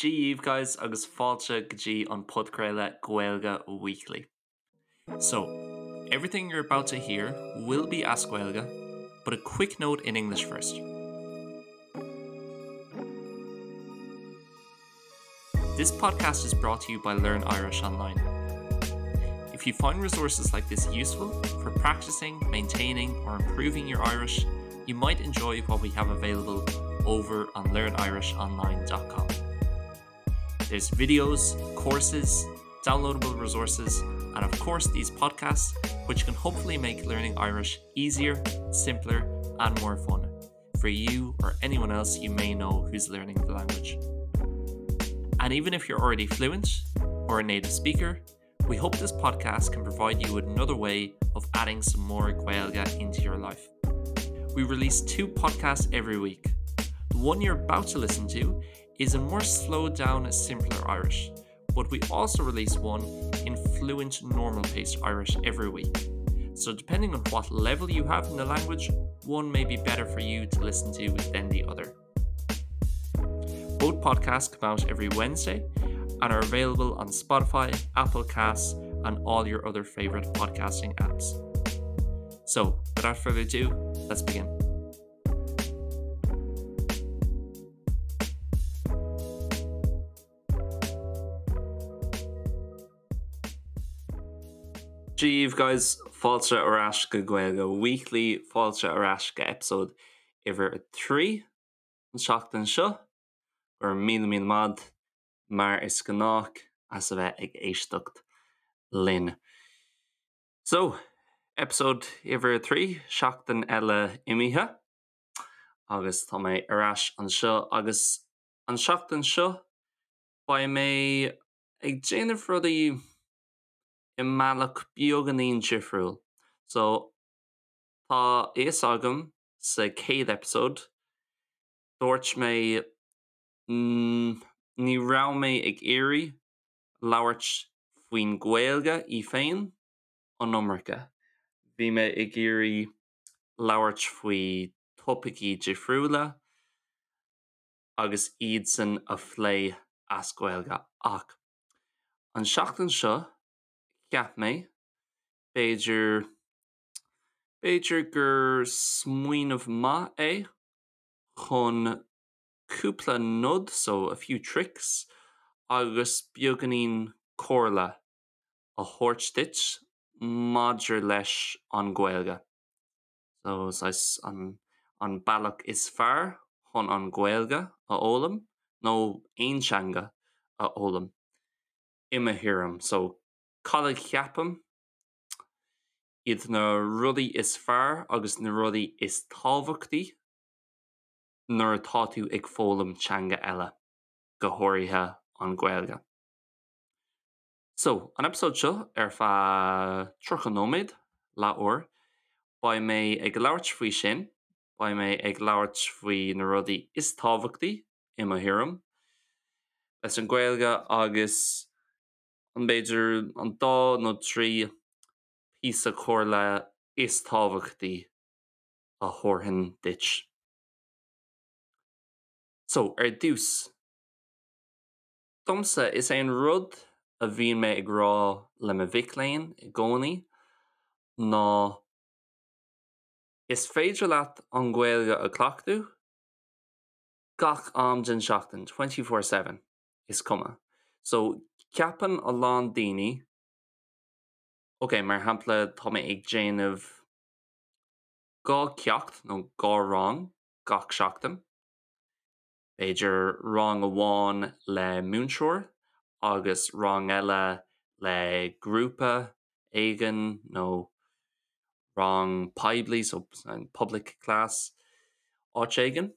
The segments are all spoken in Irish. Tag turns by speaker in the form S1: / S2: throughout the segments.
S1: Dia dhaoibh guys agus fáilte go dtí an podchraoladh Gaeilge Weekly. So, everything you're about to hear will be as Gaeilge, but a quick note in English first. This podcast is brought to you by Learn Irish Online. If you find resources like this useful for practicing, maintaining or improving your Irish, you might enjoy what we have available over on learnirishonline.com. There's videos, courses, downloadable resources, and of course these podcasts, which can hopefully make learning Irish easier, simpler, and more fun for you or anyone else you may know who's learning the language. And even if you're already fluent or a native speaker, we hope this podcast can provide you with another way of adding some more Gaeilge into your life. We release two podcasts every week. The one you're about to listen to is a more slowed down, simpler Irish, but we also release one in fluent normal paced Irish every week. So depending on what level you have in the language, one may be better for you to listen to than the other. Both podcasts come out every Wednesday and are available on Spotify, Apple Casts, and all your other favorite podcasting apps. So without further ado, let's begin. Dia dhaoibh guys, fáilte ar ais go Gaeilge Weekly, fáilte ar ais go episode uimhir 3 an tseachtain seo. Go raibh míle míle maith mar is gnách as a bheith ag éisteacht linn. So, episode uimhir 3, seachtain eile imithe agus tá mé ar ais anseo agus an seachtain seo beidh mé ag déanamh rudaí i mbealach beagáinín difriúil. So tá a fhios agam sa chéad episode dúirt mé ní raibh mé ag iarraidh labhairt faoin Ghaeilge í féin an iomarca. Bhí mé ag iarraidh labhairt faoi topaicí difriúla agus iadsan a phlé as Gaeilge ach an seachtain seo cheap mé b'fhéidir b'fhéidir gur smaoineamh maith é chun cúpla nod, so a few tricks, agus beagáinín comhairle a thabhairt duit maidir leis an Ghaeilge. So saghas an an bealach is fearr chun an Ghaeilge a fhoghlaim nó aon teanga a fhoghlaim i mo thuairim. So cad a cheapaim iad na rudaí is fearr agus na rudaí is tábhachtaí nuair atá tú ag foghlaim teanga eile, go háirithe an Ghaeilge. So, an episode seo ar feadh 30 nóiméad, leathuair, beidh mé ag labhairt faoi sin, beidh mé ag labhairt faoi na rudaí is tábhachtaí, i mo thuairim, leis an Ghaeilge agus an b'fhéidir an dá nó trí píosa comhairle is tábhachtaí a thabharfainn duit. So, ar dtús, Domsa, is é an rud a bhíonn mé ag rá le mo mhic léinn i gcónaí ná is féidir leat an Ghaeilge a chleachtadh gach am den seachtain, 24/7, is cuma. So, ceapann a lán daoine, ok, mar shampla, tá mé ag déanamh dhá cheacht nó dhá rang gach seachtain, B'fhéidir rang amháin le múinteoir agus rang eile le grúpa éigin nó rang poiblí, so public class, áit éigin.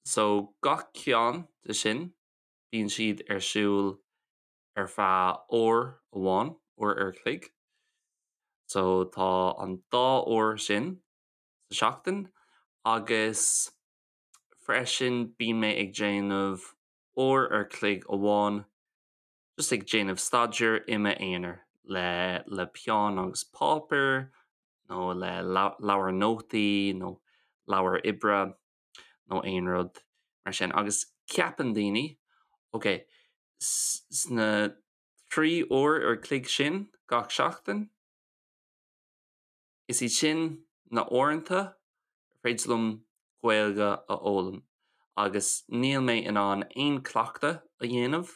S1: So gach ceann de sin bíonn siad ar siúl ar feadh uair amháin, uair ar chloig. So tá an dá uair sin sa seachtain agus freisin bíonn mé ag déanamh uair ar chloig amháin just ag déanamh staidéir i m'aonar le le peann agus páipéar nó le leabhar nótaí nó leabhar oibre nó aon rud mar sin agus ceapann daoine. Ok, sna 3 uair ar chloig sin gach seachtain, is iad sin na uaireanta ar féidir liom Gaeilge a fhoghlaim agus níl mé in ann aon cleachtadh a dhéanamh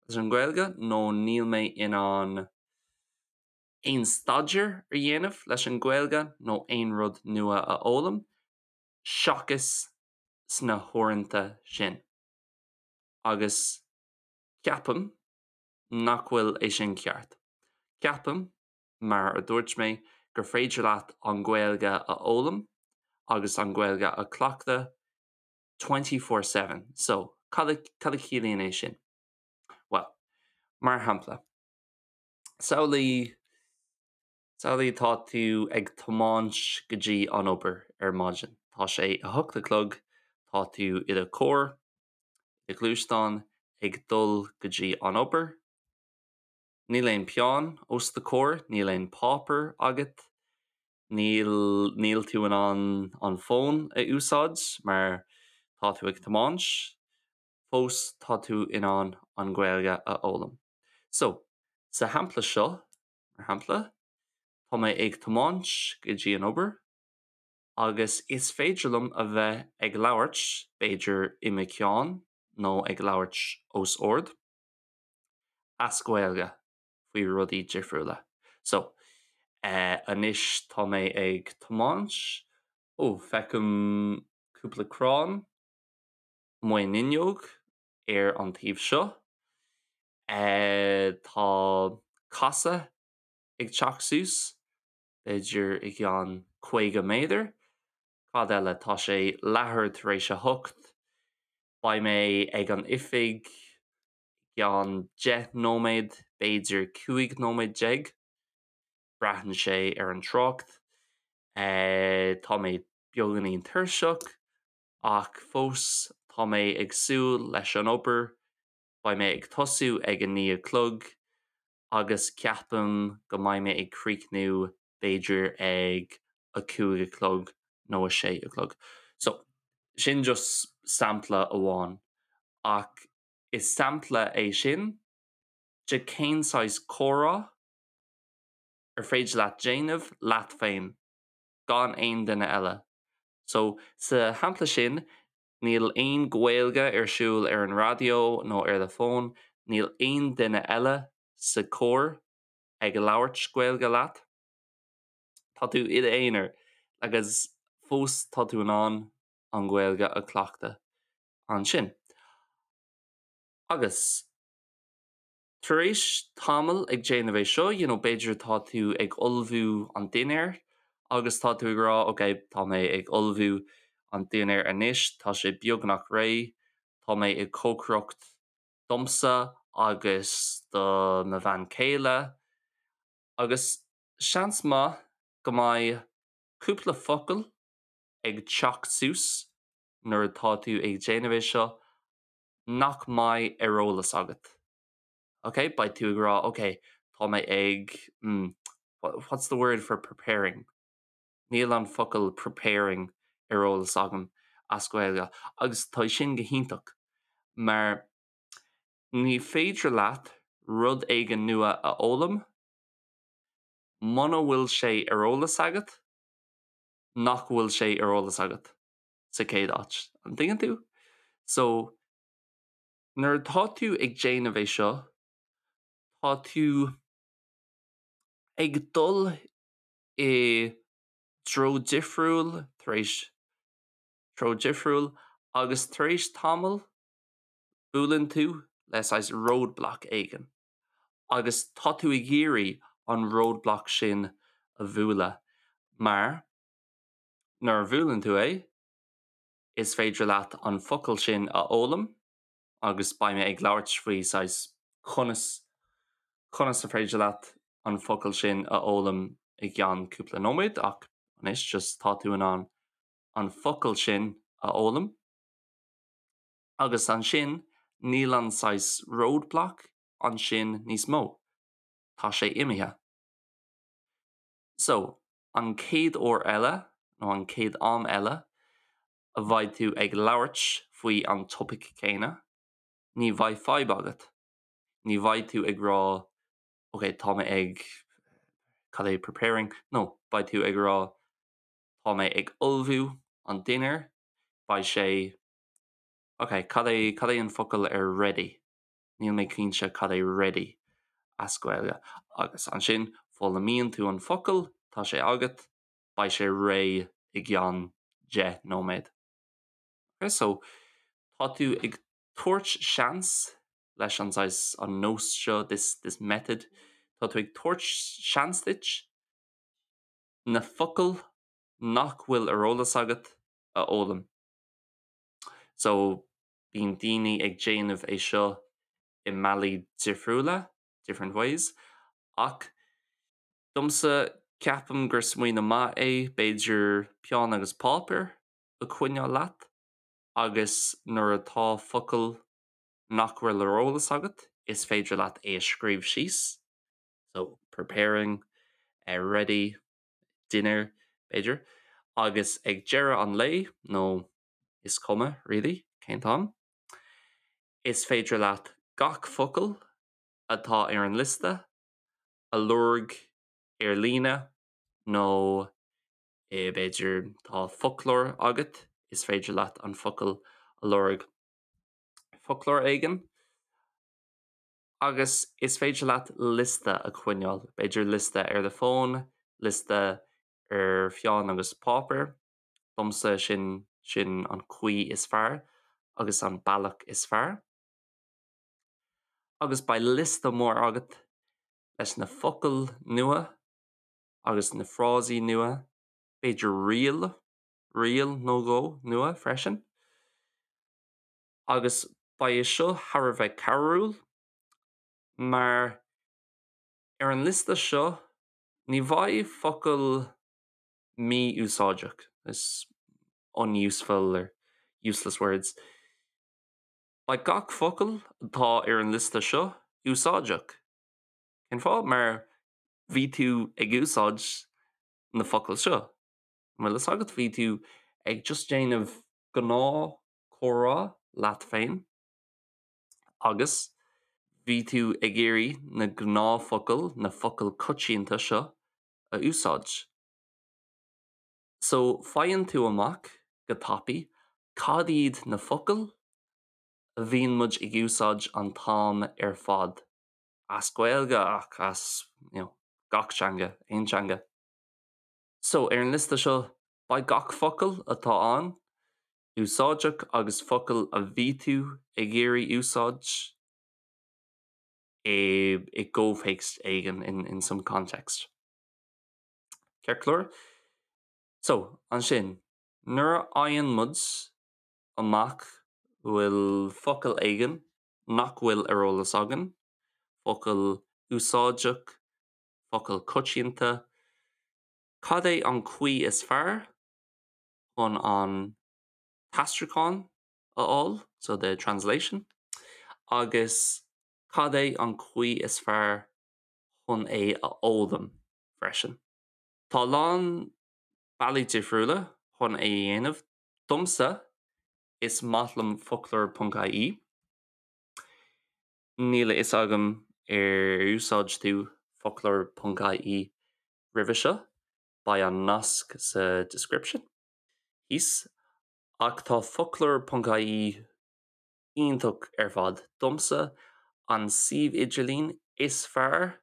S1: leis an Ghaeilge nó níl mé in ann aon staidéar a dhéanamh leis an Ghaeilge nó aon rud nua a fhoghlaim seachas sna huaireanta sin. Agus ceapaim nach bhfuil é sin ceart. Ceapaim, mar a dúirt mé, gur féidir leat an Ghaeilge a fhoghlaim agus an Ghaeilge a chleachtadh 24/7. So, cad a cad a chiallaíonn é sin? Well, mar shampla, samhlaigh samhlaigh tá tú ag tiomáint go dtí an obair ar maidin. Tá sé 8 a chlog, tá tú i do charr, i do ghluaisteán ag dul go dtí an obair. Níl aon peann os do chomhair, níl aon páipéar agat, níl níl tú in ann an fón a úsáid mar tá tú ag tiomáint, fós tá tú in ann an Ghaeilge a fhoghlaim. So, sa shampla seo, mar shampla, tá mé ag tiomáint go dtí an obair agus is féidir liom a bheith ag labhairt, b'fhéidir i mo cheann nó ag labhairt os ard, as Gaeilge faoi rudaí difriúla. So, eh, anois tá mé ag tiomáint, ó, feicim cúpla crann amuigh an fhuinneog ar an taobh seo. Eh, tá casadh ag teacht suas, b'fhéidir i gceann 50 méadar. Cad eile? Tá sé leathuair tar éis a hocht. Beidh mé ag an oifig i gceann 10 nóiméad, b'fhéidir 15 nóiméad. Braitheann sé ar an trácht. Eh, tá mé beagáinín tuirseach ach fós tá mé ag súil leis an obair. Beidh mé ag tosú ag a 9 a chlog agus ceapaim go mbeidh mé ag críochnú b'fhéidir ag a 5 a chlog nó a 6 a chlog. So, sin just sampla amháin ach is sampla é sin de cén saghas comhrá ar féidir leat déanamh leat féin gan aon duine eile. So, sa shampla sin, níl aon Ghaeilge ar siúl ar an raidió nó ar do fón, níl aon duine eile sa charr ag labhairt Gaeilge leat. Tá tú i d'aonar agus fós tá tú in ann an Ghaeilge a chleachtadh ansin. Agus tar éis tamall ag déanamh é seo, you know, b'fhéidir tá tú ag ullmhú an dinnéir agus tá tú ag rá, ok, tá mé ag ullmhú an dinnéir anois, tá sé beagnach réidh, tá mé ag cócaireacht domsa agus do mo bhean chéile agus seans maith go mbeidh cúpla focal ag teacht suas nuair atá tú ag déanamh é seo nach mbeidh ar eolas agat. Ok, beidh tú ag rá ok, tá mé ag mm, what's the word for preparing? Níl an focal preparing ar eolas agam as Gaeilge agus tá sin go hiontach mar ní féidir leat rud éigin nua a fhoghlaim muna bhfuil sé ar eolas agat nach bhfuil sé ar eolas agat sa chéad áit. An dtuigeann tú? So nuair atá tú ag déanamh é seo, tá tú ag dul i dtreo difriúil tar éis treo difriúil agus tar éis tamaill buaileann tú le saghas roadblock éigin agus tá tú ag iarraidh an roadblock sin a bhualadh mar nuair a bhuaileann tú é is féidir leat an focal sin a fhoghlaim agus beidh mé ag labhairt faoi saghas conas conas a féidir leat an focal sin a fhoghlaim i gceann cúpla nóiméad ach anois just tá tú in ann an focal sin a fhoghlaim agus ansin níl an saghas roadblock ansin níos mó. Tá sé imithe. So, an chéad uair eile nó an chéad am eile a bheidh tú ag labhairt faoi an topaic céanna. Ní bheidh fadhb agat. Ní bheidh tú ag rá ok tá mé ag cad é preparing no beidh tú ag rá tá mé ag ullmhú an dinnéar beidh sé ok cad é cad é an focal ar ready níl mé cinnte cad é ready as Gaeilge agus ansin foghlaimíonn tú an focal tá sé agat beidh sé réidh i gceann 10 nóiméad. Ok so tá tú ag tabhairt seans leis an saghas an nós seo this this method tá tú ag tabhairt seans duit na focail nach bhfuil ar eolas agat a fhoghlaim. So bíonn daoine ag déanamh é seo i mbealaí difriúla, different ways, ach domsa ceapaim gur smaoineamh maith é b'fhéidir peann agus páipéar a choinneáil leat agus nuair atá focal nach bhfuil ar eolas agat is féidir leat é a scríobh síos, so preparing, ready, dinner, b'fhéidir, agus ag deireadh an lae nó is cuma really cén t-am, is féidir leat gach focal atá ar an liosta a lorg ar líne nó b'fhéidir tá foclóir agat is féidir leat an focal a lorg foclóir éigin agus is féidir leat liosta a choinneáil, b'fhéidir liosta ar do fón, liosta ar pheann agus páipéar, domsa sin sin an chaoi is fearr agus an bealach is fearr. Agus beidh liosta mór agat leis na focail nua agus na frásaí nua, b'fhéidir riail, riail nó dhó nua freisin. Agus beidh seo thar a bheith cabhrúil mar ar an liosta seo ní bheidh focail mí-úsáideach, is unuseful or useless words. Beidh gach focal atá ar an liosta seo úsáideach. Cén fáth? Mar bhí tú ag úsáid na focail seo. An bhfuil fhios agat? Bhí tú ag just déanamh gnáth comhrá leat féin agus bhí tú ag iarraidh na gnáthfhocail, na focail coitianta seo a úsáid. So faigheann tú amach go tapaidh cad iad na focail a bhíonn muid ag úsáid an t-am ar fad. As Gaeilge ach as you know, gach teanga, aon teanga. So ar an liosta seo beidh gach focal atá ann úsáideach agus focail a bhí tú ag iarraidh úsáid i i gcomhthéacs éigin in in some context. Ceart go leor? So ansin nuair a fhaigheann muid amach bhfuil focal éigin nach bhfuil ar eolas againn, focal úsáideach, focal coitianta, cad é an chaoi is fearr chun an t-aistriúchán a fháil, so the translation, agus cad é an chaoi is fearr chun é a fhoghlaim freisin. Tá a lán bealaí difriúla chun é a dhéanamh. Domsa, is maith liom foclóir.ie. Níl a fhios agam ar úsáid tú foclóir.ie roimhe seo, beidh an nasc sa description thíos, ach tá foclóir.ie iontach ar fad. Domsa an suíomh idirlín is fearr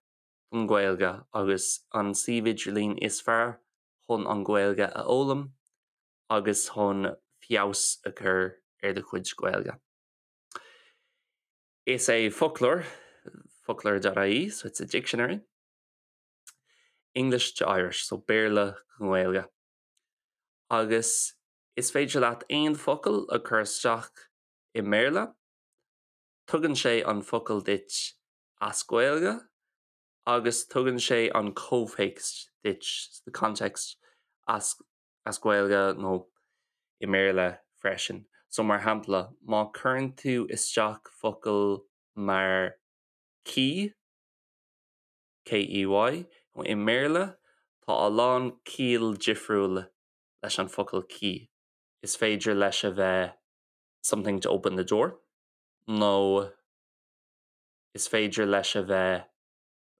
S1: don Ghaeilge agus an suíomh idirlín is fearr chun an Ghaeilge a fhoghlaim agus chun feabhas a chur ar do chuid Gaeilge. Is é foclóir, foclóir.ie, so it's a dictionary, English to Irish, so Béarla go Gaeilge. Agus is féidir leat aon focal a chur isteach i mBéarla, tugann sé an focal duit as Gaeilge agus tugann sé an comhthéacs duit, the context, as as Gaeilge nó i mBéarla freisin. So mar shampla, má chuireann tú isteach focal mar key, K-E-Y, i mBéarla tá a lán ciall difriúil leis an focal key. Is féidir leis a bheith something to open the door. Nó is féidir leis a bheith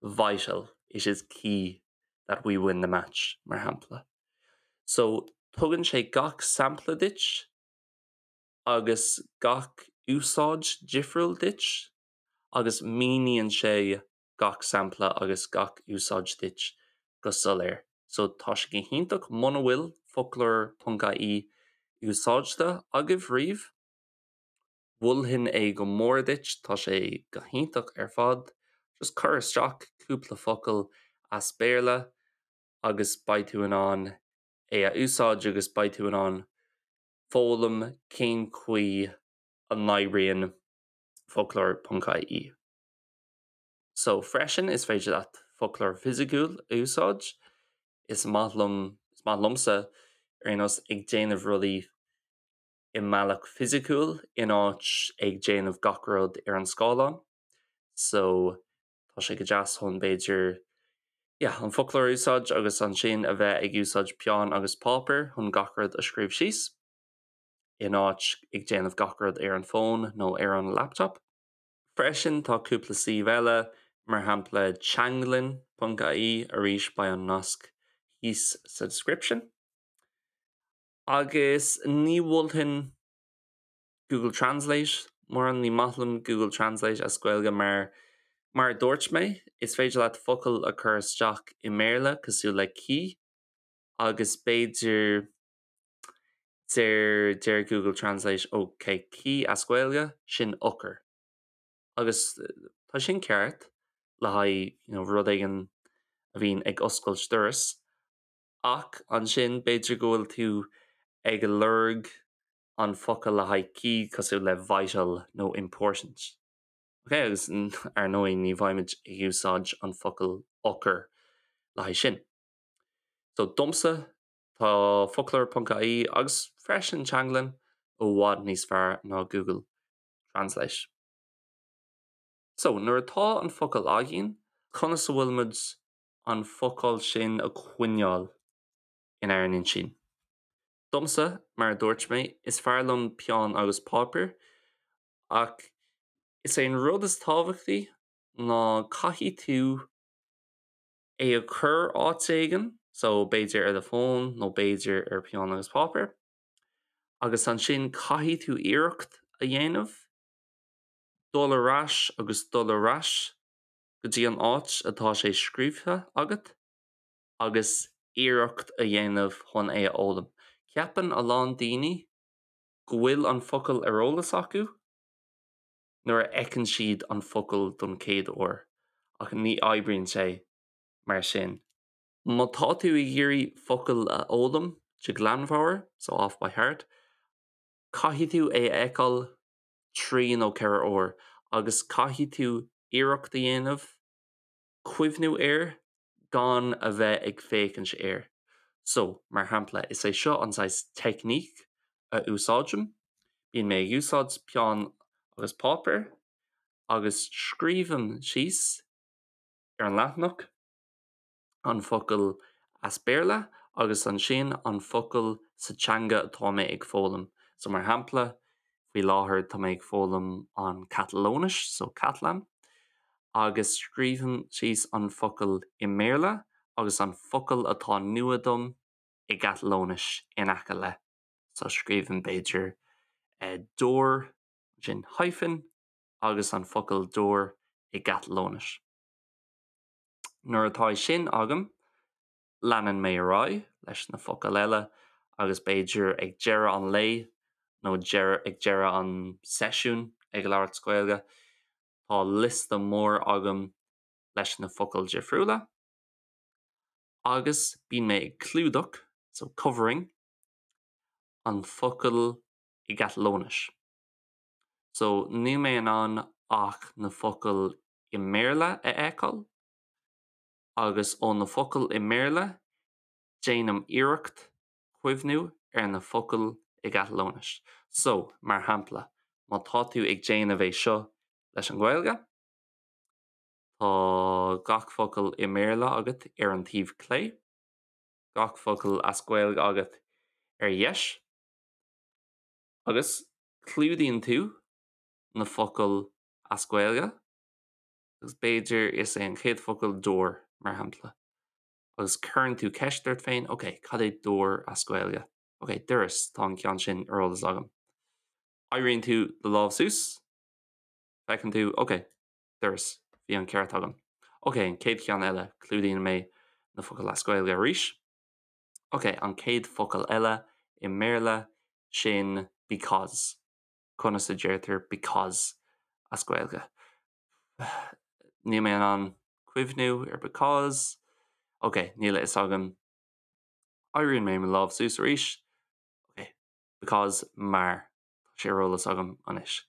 S1: vital, it is key that we win the match, mar shampla. So, tugann sé gach sampla duit agus gach úsáid difriúil duit agus míníonn sé gach sampla agus gach úsáid duit go soiléir. So tá sé go hiontach muna bhfuil foclóir ponc ie úsáidte agaibh riamh. Mholfainn é go mór duit, tá sé go hiontach ar fad. Just cuir isteach cúpla focal as Béarla agus beidh tú in ann é a úsáid agus beidh tú in ann foghlaim cén chaoi a n-oibríonn foclóir ponc ie. So freisin is féidir leat foclóir fisiciúil a úsáid. Is maith liom, is maith liomsa ar aon nós ag déanamh rudaí i mbealach fisiciúil in áit ag déanamh gach rud ar an scáileán. So tá sé go deas chun b'fhéidir yeah, an foclóir a úsáid agus ansin a bheith ag úsáid peann agus páipéar chun gach rud a scríobh síos in áit ag déanamh gach rud ar an bhfón nó ar an laptop. Freisin tá cúpla suíomh eile, mar shampla teanglann ponc ie, arís beidh an nasc thíos sa description. Agus ní mholfainn Google Translate mórán, ní maith liom Google Translate as Gaeilge mar, mar a dúirt mé, is féidir leat focal a chur isteach i mBéarla cosúil le key agus b'fhéidir deir deir Google Translate ok key as Gaeilge, sin eochair. Agus tá sin ceart le haghaidh you know rud éigin a bhíonn ag oscailt doras. Ach ansin b'fhéidir go bhfuil tú ag lorg an focal le haghaidh key cosúil le vital nó important. Ok, agus ar ndóigh ní bheimid ag úsáid an focal eochair le haghaidh sin. So domsa tá foclóir ponc ie agus freisin teanglann i bhfad níos fearr ná Google Translate. So nuair atá an focal againn, conas a bhfuil muid an focal sin a choinneáil inár n-intinn. Domsa, mar a dúirt mé, is fearr liom peann agus páipéar, ach is é an rud is tábhachtaí ná caithfidh tú é a chur áit éigin, so b'fhéidir ar do fón nó b'fhéidir ar peann agus páipéar, agus ansin caithfidh tú iarracht a dhéanamh dul ar ais agus dul ar ais go dtí an áit atá sé scríobhtha agat agus iarracht a dhéanamh chun é a fhoghlaim. Ceapann a lán daoine go bhfuil an focal ar eolas acu nuair a fheiceann siad an focal don chéad uair, ach ní oibríonn sé mar sin. Má tá tú ag iarraidh focal a fhoghlaim de ghlanmheabhair, so off by heart, caithfidh tú é a fheiceáil 3 nó 4 uair agus caithfidh tú iarracht a dhéanamh cuimhniú air gan a bheith ag féachaint air. So, mar shampla, is é seo an saghas teicníc a úsáidim, bíonn mé ag úsáid peann agus páipéar agus scríobhaim síos ar an leathanach an focal as Béarla agus ansin an focal sa teanga atá mé ag foghlaim. So mar shampla, faoi láthair tá mé ag foghlaim an Catalóinis, so Catalan, agus scríobhaim síos an focal i mBéarla agus an focal atá nua dom i gCatalóinis in aice le. So scríobhaim b'fhéidir door, ansin hyphen, agus an focal door i gCatalóinis. Nuair atá é sin agam, leanann mé ar aghaidh leis na focail eile agus b'fhéidir ag deireadh an lae nó ag deireadh an seisiúin ag labhairt Gaeilge, tá liosta mór agam leis na focail difriúla agus bíonn mé ag clúdach, so covering, an focal i gCatalóinis. So níl mé in ann ach na focail i mBéarla a fheiceáil agus ó na focail i mBéarla déanaim iarracht cuimhniú ar na focail i gCatalóinis. So, mar shampla, má tá tú ag déanamh é seo leis an Ghaeilge, tá gach focal i mBéarla agat ar an taobh clé, gach focal as Gaeilge agat ar dheis, agus clúdaíonn tú. na focail as Gaeilge agus b'fhéidir is é an chéad focal door mar shampla. Agus cuireann tú ceist ort féin, ok, cad é door as Gaeilge? Ok, doras, tá an ceann sin ar eolas agam. Éiríonn tú do lámh suas, feiceann tú, ok, doras, bhí an ceart agam. Ok, an chéad cheann eile, clúdaíonn mé na focail as Gaeilge arís. Ok, an chéad focal eile i mBéarla, sin because. Conas a deirtear because as Gaeilge? Níl mé in ann cuimhniú ar because. Ok, níl a fhios agam. Éiríonn mé mo lámh suas arís. Ok, because mar. Tá sé ar eolas agam anois.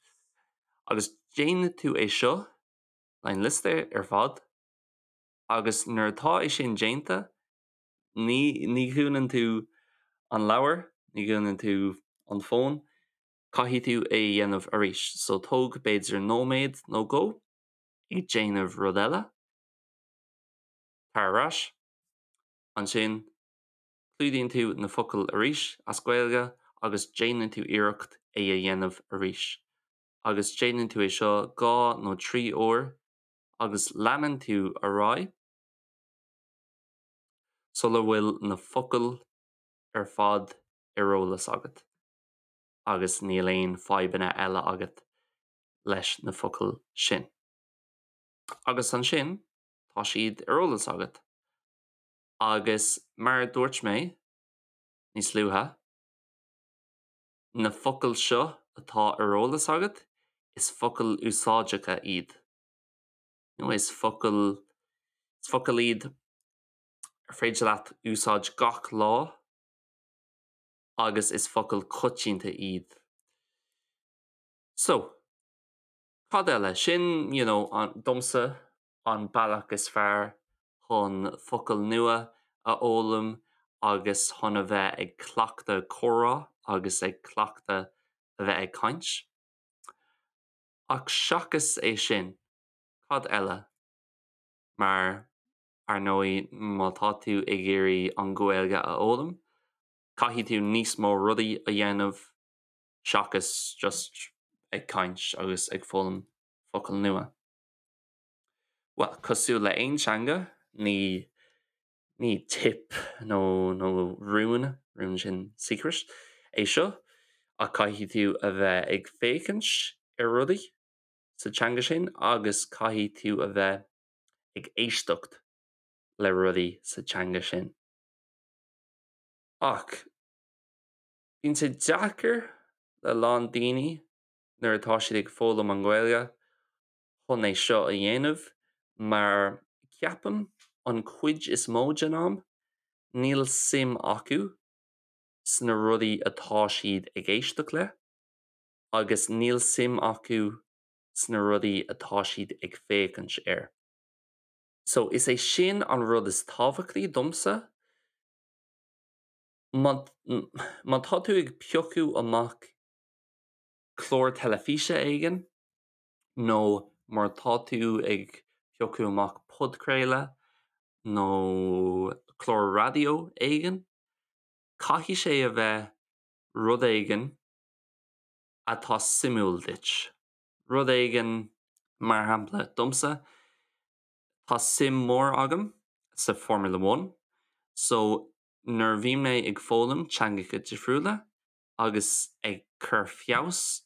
S1: Agus déanann tú é seo le an liosta ar fad agus nuair atá é sin déanta, ní ní dhúnann tú an leabhar, ní dhúnann tú an fón, caithfidh tú é a dhéanamh arís. So tóg b'fhéidir nóiméad nó dhó ag déanamh rud eile, tar ar ais, ansin clúdaíonn tú na focail arís as Gaeilge agus déanann tú iarracht é a dhéanamh arís. Agus déanann tú é seo 2 nó 3 uair agus leanann tú ar aghaidh sula bhfuil na focail ar fad ar eolas agat agus níl aon fadhbanna eile agat leis na focail sin. Agus ansin tá siad ar eolas agat. Agus mar a dúirt mé níos luaithe, na focail seo atá ar eolas agat, is focail úsáideacha iad. Nó is focail, is focail iad ar féidir leat úsáid gach lá agus is focail coitianta iad. So, cad eile? Sin, you know, an, domsa, an bealach is fearr chun focail nua a fhoghlaim agus chun a bheith ag cleachtadh comhrá agus ag cleachtadh a bheith ag caint. Ach seachas é sin, cad eile? Mar, ar ndóigh, má tá tú ag iarraidh an Ghaeilge a fhoghlaim, caithfidh tú níos mó rudaí a dhéanamh seachas just ag caint agus ag foghlaim focail nua. Bhuel, cosúil le aon teanga, ní ní tip nó nó rún, rún sin secret, é seo, ach caithfidh tú a bheith ag féachaint ar rudaí sa teanga sin agus caithfidh tú a bheith ag éisteacht le rudaí sa teanga sin. Ach bíonn sé deacair le lán daoine nuair atá siad ag foghlaim an Ghaeilge chun é seo a dhéanamh mar ceapaim an chuid is mó den am níl suim acu sna rudaí atá siad ag éisteacht le agus níl suim acu sna rudaí atá siad ag féachaint air. So is é sin an rud is tábhachtaí domsa, má má tá tú ag piocadh amach clár teilifíse éigin, nó má tá tú ag piocadh amach podchraoladh nó clár raidió éigin, caithfidh sé a bheith rud éigin atá suimiúil duit. Rud éigin, mar shampla, domsa, tá suim mhór agam sa Formula One, so nuair a bhí mé ag foghlaim teangacha difriúla agus ag cur feabhas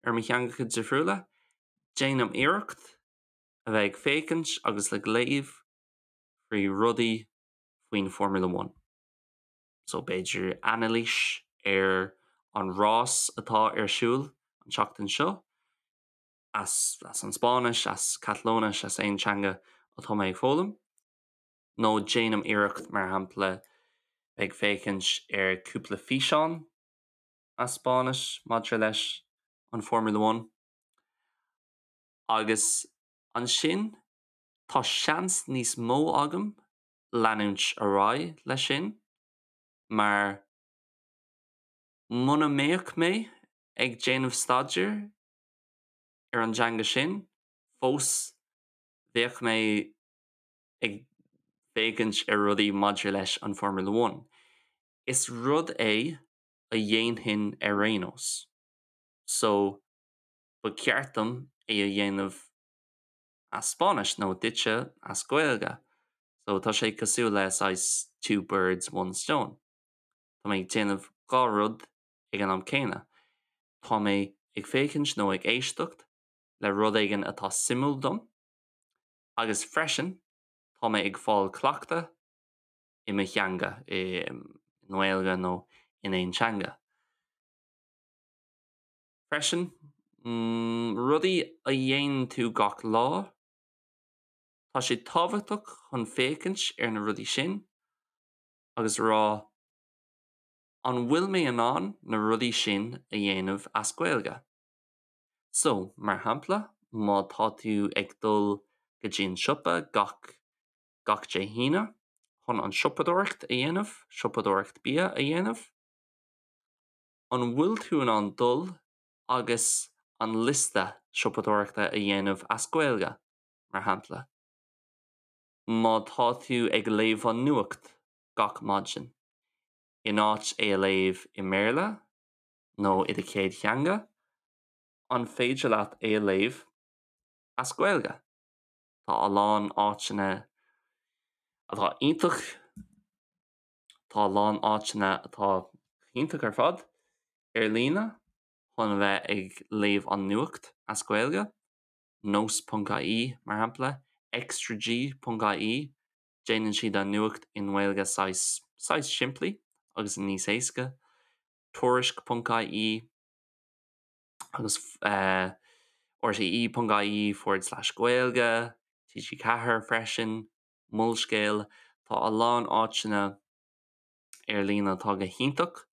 S1: ar mo theangacha difriúla, déanaim iarracht a bheith ag féachaint agus ag léamh faoi rudaí faoin Formula One. So b'fhéidir anailís ar an rás atá ar siúl an tseachtain seo, as as an Spáinnis, as Catalóinis, as aon teanga atá mé ag foghlaim. Nó déanaim iarracht, mar shampla, ag féachaint ar cúpla físeán as Spáinnis maidir leis an Formula One. Agus ansin tá seans níos mó agam leanúint ar aghaidh leis sin mar muna mbeadh mé ag déanamh staidéir ar an dteanga sin fós bheadh mé ag féachaint ar rudaí maidir leis an Formula One. Is rud é a dhéanfainn ar aon nós. So, Ba cheart dom é a dhéanamh as Spáinnis nó duitse as Gaeilge. So tá sé cosúil le saghas two birds, one stone. Tá mé ag déanamh 2 rud ag an am céanna. Tá mé ag féachaint nó ag éisteacht le rud éigin atá suimiúil dom agus freisin tá mé ag fáil cleachtadh i mo theanga, i nGaeilge nó in aon teanga. Freisin, rudaí a dhéanann tú gach lá, tá sé tábhachtach chun féachaint ar na rudaí sin agus rá 'an bhfuil mé in ann na rudaí sin a dhéanamh as Gaeilge? So, mar shampla, má tá tú ag dul go dtí an siopa gach gach Dé hAoine chun an siopadóireacht a dhéanamh, siopadóireacht bia a dhéanamh, an bhfuil tú in ann dul agus an liosta siopadóireachta a dhéanamh as Gaeilge, mar shampla? Má tá tú ag léamh an nuacht gach maidin, in áit é a léamh i mBéarla nó i do chéad theanga, an féidir leat é a léamh as Gaeilge? Tá a lán áiteanna atá iontach, tá a lán áiteanna atá iontach ar fad ar líne chun a bheith ag léamh an nuacht as Gaeilge, nós.ie mar shampla, extrag.ie, déanann siad an nuacht i nGaeilge saghas, saghas simplí agus níos éasca, tuairisc.ie, agus rte.ie forward slash Gaeilge, TG4 freisin, Molscéal, tá a lán áiteanna ar líne atá go hiontach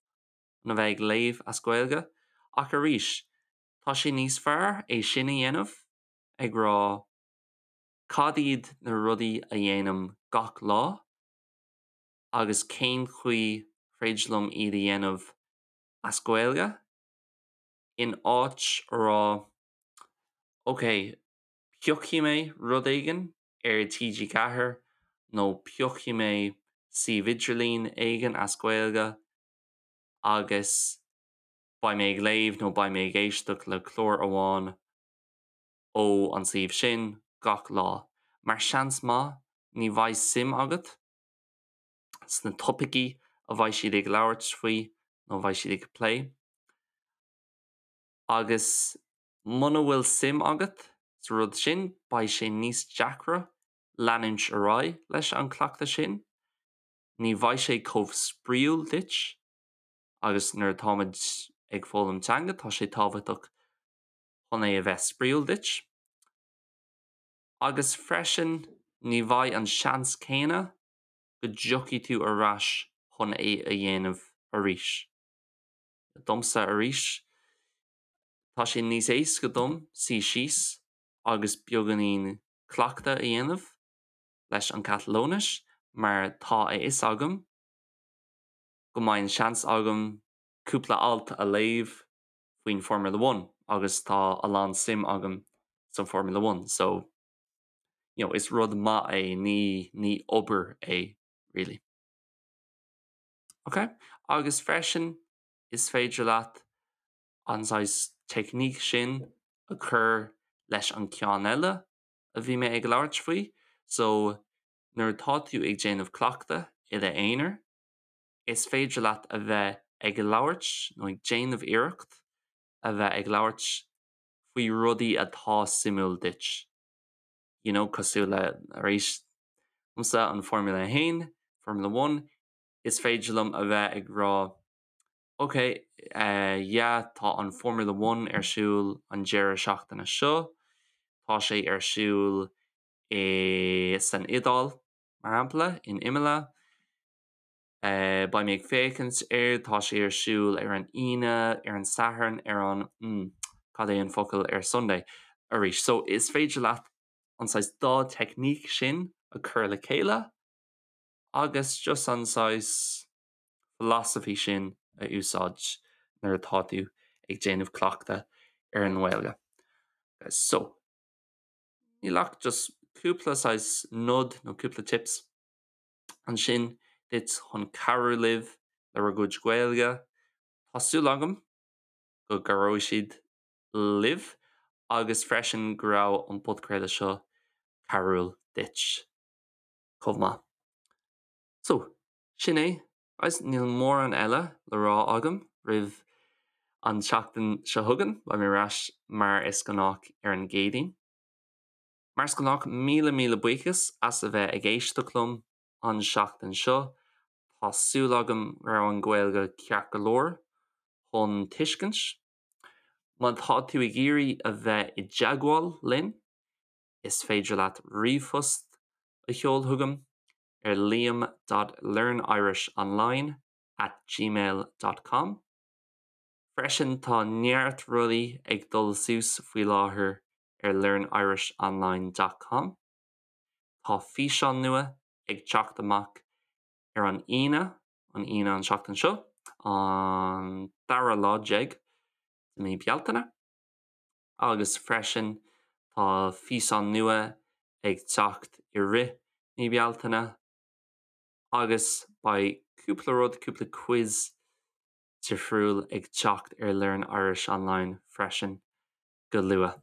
S1: chun a bheith ag léamh as Gaeilge, ach arís, tá sé níos fearr é sin a dhéanamh ag rá cad iad na rudaí a dhéanaim gach lá agus cén chaoi féidir liom iad a dhéanamh as Gaeilge. in áit a rá ok, piocfaidh mé rud éigin ar TG4 nó piocfaidh mé suíomh idirlín éigin as Gaeilge agus beidh mé ag léamh nó beidh mé ag éisteacht le clár amháin ó an suíomh sin gach lá. Mar seans maith ní bheidh suim agat sna topaicí a bheidh siad ag labhairt faoi nó a bheidh siad ag plé. Agus muna bhfuil suim agat sa rud sin, beidh sé níos deacra leanúint ar aghaidh leis an cleachtadh sin. Ní bheidh sé chomh spraíúil duit agus nuair atáimid ag foghlaim teanga, tá sé tábhachtach chun é a bheith spraíúil duit. Agus freisin, ní bheidh an seans céanna go dtiocfaidh tú ar ais chun é a dhéanamh arís. Domsa arís, tá sé níos éasca dom suí síos agus beagáinín cleachtadh a dhéanamh leis an Catalóinis mar tá a fhios agam go mbeidh an seans agam cúpla alt a léamh faoin Formula One agus tá a lán suim agam san Formula One so you know, is rud maith é, ní, ní obair é really. Ok? Agus freisin is féidir leat an saghas teicníc sin a chur leis an ceann eile a bhí mé ag labhairt faoi, so nuair atá tú ag déanamh cleachtadh i d'aonar, is féidir leat a bheith ag labhairt nó ag déanamh iarracht a bheith ag labhairt faoi rudaí atá suimiúil duit. You know, cosúil le, arís, domsa an Formula 1, Formula One, is féidir liom a bheith ag rá ok, eh, yeah, tá an Formula One ar siúl an deireadh seachtaine seo, tá sé ar siúl i, san Iodáil, mar shampla, in Imola, Beidh mé ag féachaint air, tá sé ar siúl ar an Aoine, ar an Satharn, ar an, mm, cad é an focal ar Sunday? Arís, so is féidir leat an saghas dá teicníc sin a chur le chéile agus just an saghas philosophy sin a úsáid nuair atá tú ag déanamh cleachtadh ar an nGaeilge. So, níl ach just cúpla saghas nod nó cúpla tips ansin duit chun cabhrú libh le bhur gcuid Gaeilge. Tá súil agam go gcabhróidh siad libh. Agus freisin go raibh an podchraoladh seo cabhrúil duit chomh maith. So, sin é, guys, níl mórán eile le rá agam roimh an tseachtain seo chugainn, beidh mé ar ais mar is gnách ar an gCéadaoin. Mar is gnách, míle míle buíochas as a bheith ag éisteacht liom an seachtain seo. Tá súil agam go raibh an Ghaeilge ceart go leor chun tuiscint. Má tá tú ag iarraidh a bheith i dteagmháil linn, is féidir leat ríomhphost a sheoladh chugam ar liam dot learnirishonline at gmail dot com. Freisin tá neart rudaí ag dul suas faoi láthair ar learnirishonline dot com. Tá físeán nua ag teacht amach ar an Aoine, an Aoine an tseachtain seo, an dara lá déag de mí Bealtaine, agus freisin tá físeán nua ag teacht i rith mí Bealtaine agus beidh cúpla rud, cúpla quiz difriúil ag teacht ar Learn Irish Online freisin go luath.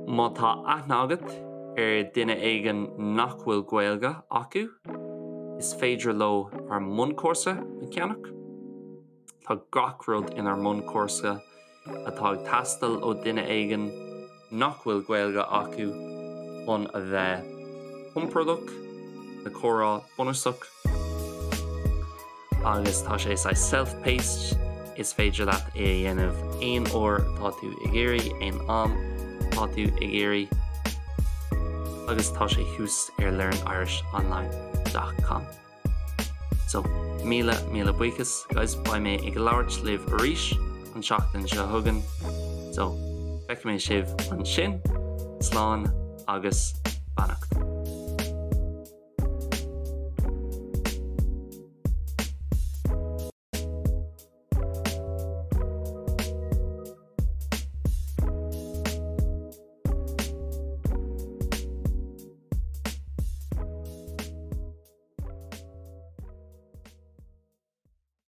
S1: Má tá aithne agat ar duine éigin nach bhfuil Gaeilge acu, is féidir leo ár mbunchúrsa a cheannach. Tá gach rud inár mbunchúrsa atá ag teastáil ó duine éigin nach bhfuil Gaeilge acu chun a bheith compordach le comhrá bunúsach. Agus tá sé saghas self-paced, is féidir leat é a dhéanamh aon uair atá tú ag iarraidh, aon am atá tú ag iarraidh, agus tá sé thuas ar learnirishonline dot com. So, míle míle buíochas, guys, beidh mé ag labhairt libh arís an tseachtain seo chugainn, so feicfidh mé sibh ansin, slán agus.